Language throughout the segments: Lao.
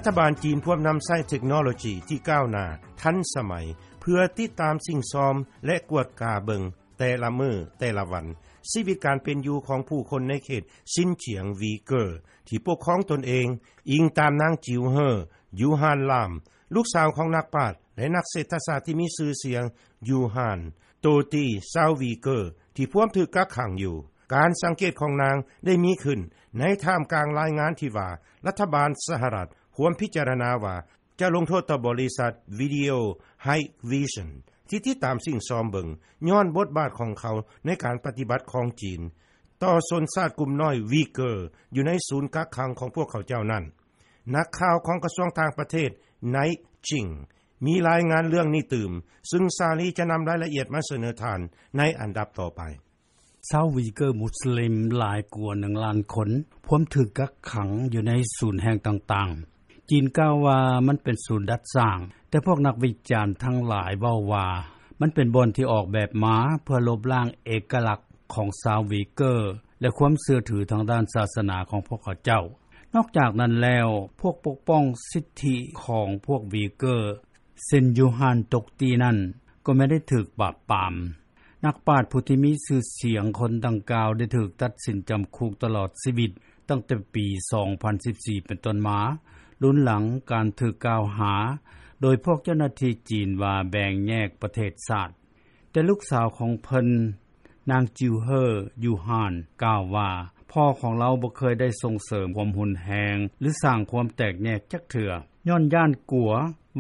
ຖະບານຈີນພວມນຳໃຊ້ເທັກໂນໂລຈີທີ່ກ້າວໜ້າທັນສະໄໝ ເພື່ອຕິດຕາມສິ່ງຊອມ ແລະ ກວດກາເບິ່ງແຕ່ລະມື້ແຕ່ລະວັນ ຊີວິດການເປັນຢູ່ຂອງຜູ້ຄົນໃນເຂດຊິນຈຽງວີເກີ ທີ່ປົກຄອງຕົນເອງ, ອີງຕາມນາງ ຈິວເຮີ ຢູຮານລາມ ລູກສາວຂອງນັກປາດ ແລະ ນັກເສດຖະສາດທີ່ມີຊື່ສຽງ ຢູຮານ ໂຕຕີ ຊາວວີເກີ ທີ່ພວມຖືກກັກຂັງຢູ່. ການສັງເກດຂອງນາງໄດ້ມີຂຶ້ນໃນທ່າມກາງລາຍງານທີ່ວ່າ ລັດຖະບານສະຫະລັດພວມພິຈາລະນາວ່າ ຈະລົງໂທດຕໍ່ບໍລິສັດ Video Hikvision ທີ່ຕິດຕາມສິ່ງຊອມເບິ່ງ ຍ້ອນບົດບາດຂອງເຂົາໃນການປະຕິບັດຂອງຈີນ ຕໍ່ຊົນຊາດກຸ່ມນ້ອຍວີເກີ ຢູ່ໃນສູນກັກຂັງຂອງພວກເຂົາເຈົ້ານັ້ນ. ນັກຂ່າວຂອງກະຊວງຕ່າງປະເທດ Night Jing ມີລາຍງານເລື່ອງນີ້ຕື່ມ, ຊຶ່ງສາລີຈະນຳລາຍລະອຽດມາສະເໜີທ່ານໃນອັນດັບຕໍ່ໄປ. ຊາວວີເກີມຸສລິມຫຼາຍກວ່າໜຶ່ງລ້ານຄົນ ພວມຖືກກັກຂັງຢູ່ໃນສູນແຫ່ງຕ່າງໆ. ຈີນກ່າວວ່າມັນເປັນສູນດັດສ້າງ, ແຕ່ພວກນັກວິຈານທັງຫຼາຍເວົ້າວ່າ ມັນເປັນບ່ອນທີ່ອອກແບບມາເພື່ອລົບລ້າງເອກະລັກຂອງຊາວວີເກີ ແລະ ຄວາມເຊື່ອຖືທາງດ້ານສາສະໜາຂອງພວກເຂົາເຈົ້າ. ນອກຈາກນັ້ນແລ້ວ, ພວກປົກປ້ອງສິດທິຂອງພວກວີເກີ ເຊັ່ນ ຢູຮານ ຕົກຕີ ນັ້ນ ກໍແມ່ນໄດ້ຖືກປາບປາມ. ນັກປາດຜູ້ທີ່ມີຊື່ສຽງຄົນດັ່ງກ່າວໄດ້ຖືກຕັດສິນຈຳຄຸກຕະຫຼອດຊີວິດຕັ້ງແຕ່ປີສອງພັນສິບສີ່ເປັນຕົ້ນມາ, ລຸນຫຼັງການຖືກກ່າວຫາໂດຍພວກເຈົ້າໜ້າທີ່ຈີນວ່າແບ່ງແຍກປະເທດຊາດ. ແຕ່ລູກສາວຂອງເພິ່ນ, ນາງ ຈິວເຮີ ຢູຮານ ກ່າວວ່າ ພໍ່ຂອງລາວບໍ່ເຄີຍໄດ້ສົ່ງເສີມຄວາມຮຸນແຮງ ຫຼື ສ້າງຄວາມແຕກແຍກຈັກເທື່ອ, ຍ້ອນຢ້ານກົວ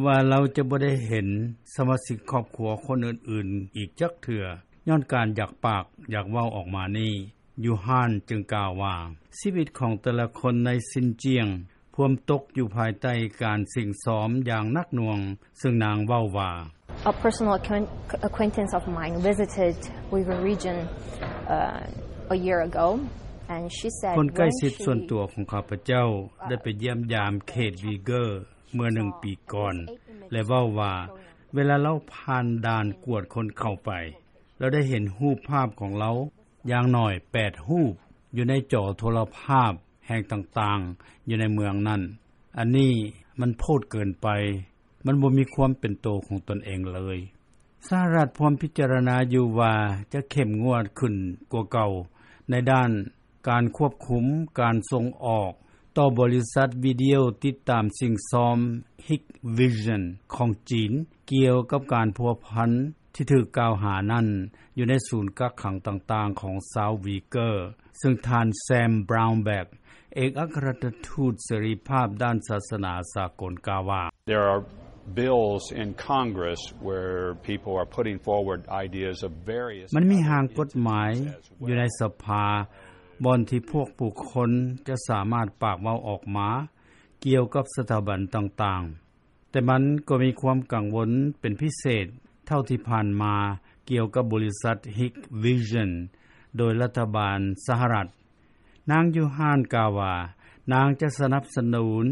ວ່າລາວຈະບໍ່ໄດ້ເຫັນສະມາຊິກຄອບຄົວຄົນອື່ນໆອີກຈັກເທື່ອ, ຍ້ອນການຢາກປາກຢາກເວົ້າອອກມານີ້. ຢູຮານຈຶ່ງກ່າວວ່າ ຊີວິດຂອງແຕ່ລະຄົນໃນຊິນຈຽງພວມຕົກຢູ່ພາຍໃຕ້ການສິ້ງຊອມຢ່າງໜັກໜ່ວງ, ເຊິ່ງນາງເວົ້າວ່າ A personal acquaint- acquaintance of mine visited Uyghur region uh, a year ago, and she said ຄົນໃກ້ຊິດສ່ວນຕົວຂອງຂ້າພະເຈົ້າໄດ້ໄປຢ້ຽມຢາມເຂດວີເກີເມື່ອໜຶ່ງປີກ່ອນ ແລະ ເວົ້າວ່າ ເວລາລາວຜ່ານດ່ານກວດຄົນເຂົ້າໄປ, ລາວໄດ້ເຫັນຮູບພາບຂອງລາວຢ່າງໜ້ອຍແປດຮູບ ຢູ່ໃນຈໍໂທລະພາບແຫ່ງຕ່າງໆ ຢູ່ໃນເມືອງນັ້ນ. ອັນນີ້ມັນໂພດເກີນໄປ, ມັນບໍ່ມີຄວາມເປັນໂຕຂອງຕົນເອງເລີຍ. ສະຫະລັດພວມພິຈາລະນາຢູ່ວ່າຈະເຂັ້ມງວດຂຶ້ນກວ່າເກົ່າໃນດ້ານການຄວບຄຸມການສົ່ງອອກຕໍ່ບໍລິສັດວິດີໂອຕິດຕາມສິ່ງຊອມ Hikvision ຂອງຈີນ ກ່ຽວກັບການພົວພັນ ທີ່ຖືກກ່າວຫານັ້ນ ຢູ່ໃນສູນກັກຂັງຕ່າງໆຂອງຊາວວີເກີ, ເຊິ່ງທ່ານ Sam Brownback ເອກອັກຄະລັດຖະທູດເສລີພາບດ້ານສາສະໜາສາກົນກ່າວວ່າ There are bills in Congress where people are putting forward ideas of various ມັນມີຮ່າງກົດໝາຍຢູ່ໃນສະພາ ບ່ອນທີ່ພວກບຸກຄົນຈະສາມາດປາກເວົ້າອອກມາກ່ຽວກັບສະຖາບັນຕ່າງໆ. ແຕ່ມັນກໍມີຄວາມກັງວົນເປັນພິເສດ ເທົ່າທີ່ຜ່ານມາກ່ຽວກັບບໍລິສັດ Hikvision ໂດຍລັດຖະບານສະຫະລັດ. ນາງ ຢູຮານ ກ່າວວ່າ ນາງຈະສະໜັບສະໜູນ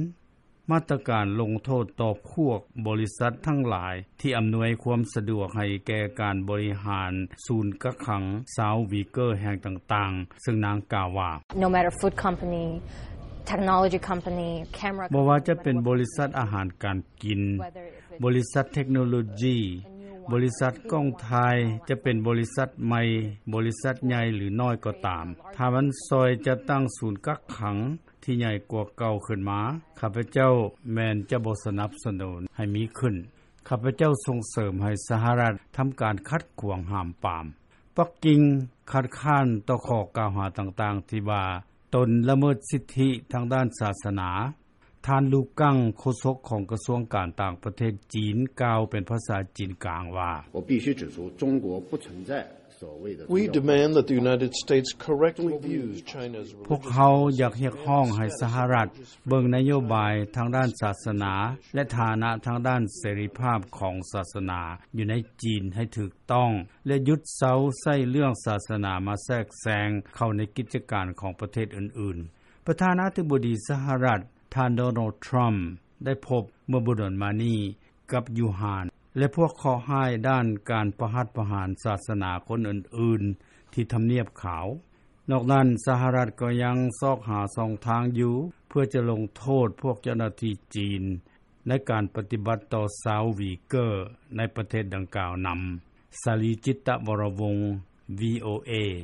ມາດຕະການລົງໂທດຕໍ່ພວກບໍລິສັດທັງຫຼາຍ ທີ່ອຳນວຍຄວາມສະດວກໃຫ້ແກ່ການບໍລິຫານສູນກັກຂັງຊາວວີເກີແຫ່ງຕ່າງໆ, ເຊິ່ງນາງກ່າວວ່າ No matter food company, technology company, camera ບໍ່ວ່າຈະເປັນບໍລິສັດອາຫານການກິນ, ບໍລິສັດເທັກໂນໂລຈີ, ບໍລິສັດກ້ອງຖ່າຍ, ຈະເປັນບໍລິສັດໃໝ່, ບໍລິສັດໃຫຍ່ ຫຼື ນ້ອຍກໍຕາມ, ຖ້າມັນຊ່ອຍຈັດຕັ້ງສູນກັກຂັງທີ່ໃຫຍ່ກວ່າເກົ່າຂຶ້ນມາ, ຂ້າພະເຈົ້າແມ່ນຈະບໍ່ສະໜັບສະໜູນໃຫ້ມີຂຶ້ນ. ຂ້າພະເຈົ້າສົ່ງເສີມໃຫ້ສະຫະລັດທຳການຂັດຂວາງຫ້າມປາມ. ປັກກິ່ງຄັດຄ້ານຕໍ່ຂໍ້ກ່າວຫາຕ່າງໆທີ່ວ່າຕົນລະເມີດສິດທິທາງດ້ານສາສະໜາ. ທ່ານ ລູກັງ ໂຄສົກຂອງກະຊວງການຕ່າງປະເທດຈີນ ກ່າວເປັນພາສາຈີນກາງວ່າ 我必须指出，中国不存在所谓的 We demand that the United States correctly views China's ພວກເຮົາຢາກຮຽກຮ້ອງໃຫ້ສະຫະລັດເບິ່ງນະໂຍບາຍທາງດ້ານສາສະໜາ ແລະ ຖານະທາງດ້ານເສລີພາບຂອງສາສະໜາຢູ່ໃນຈີນໃຫ້ຖືກຕ້ອງ ແລະ ຢຸດເຊົາໃຊ້ເລື່ອງສາສະໜາມາແຊກແຊງເຂົ້າໃນກິດຈະການຂອງປະເທດອື່ນໆ. ປະທານາທິບໍດີສະຫະລັດ ທ່ານ ໂດນັລ ທຣຳ ໄດ້ພົບເມື່ອບໍ່ດົນມານີ້ກັບ ຢູຮານ ແລະ ພວກເຄາະຮ້າຍດ້ານການປະຫັດປະຫານສາສະໜາຄົນອື່ນໆທີ່ທຳນຽບຂາວ. ນອກນັ້ນ ສະຫະລັດ ກໍຍັງຊອກຫາ ຊ່ອງທາງຢູ່ ເພື່ອຈະລົງໂທດ ພວກເຈົ້າໜ້າທີ່ຈີນ ໃນການປະຕິບັດ ຕໍ່ຊາວວີເກີ ໃນປະເທດດັ່ງກ່າວນຳ.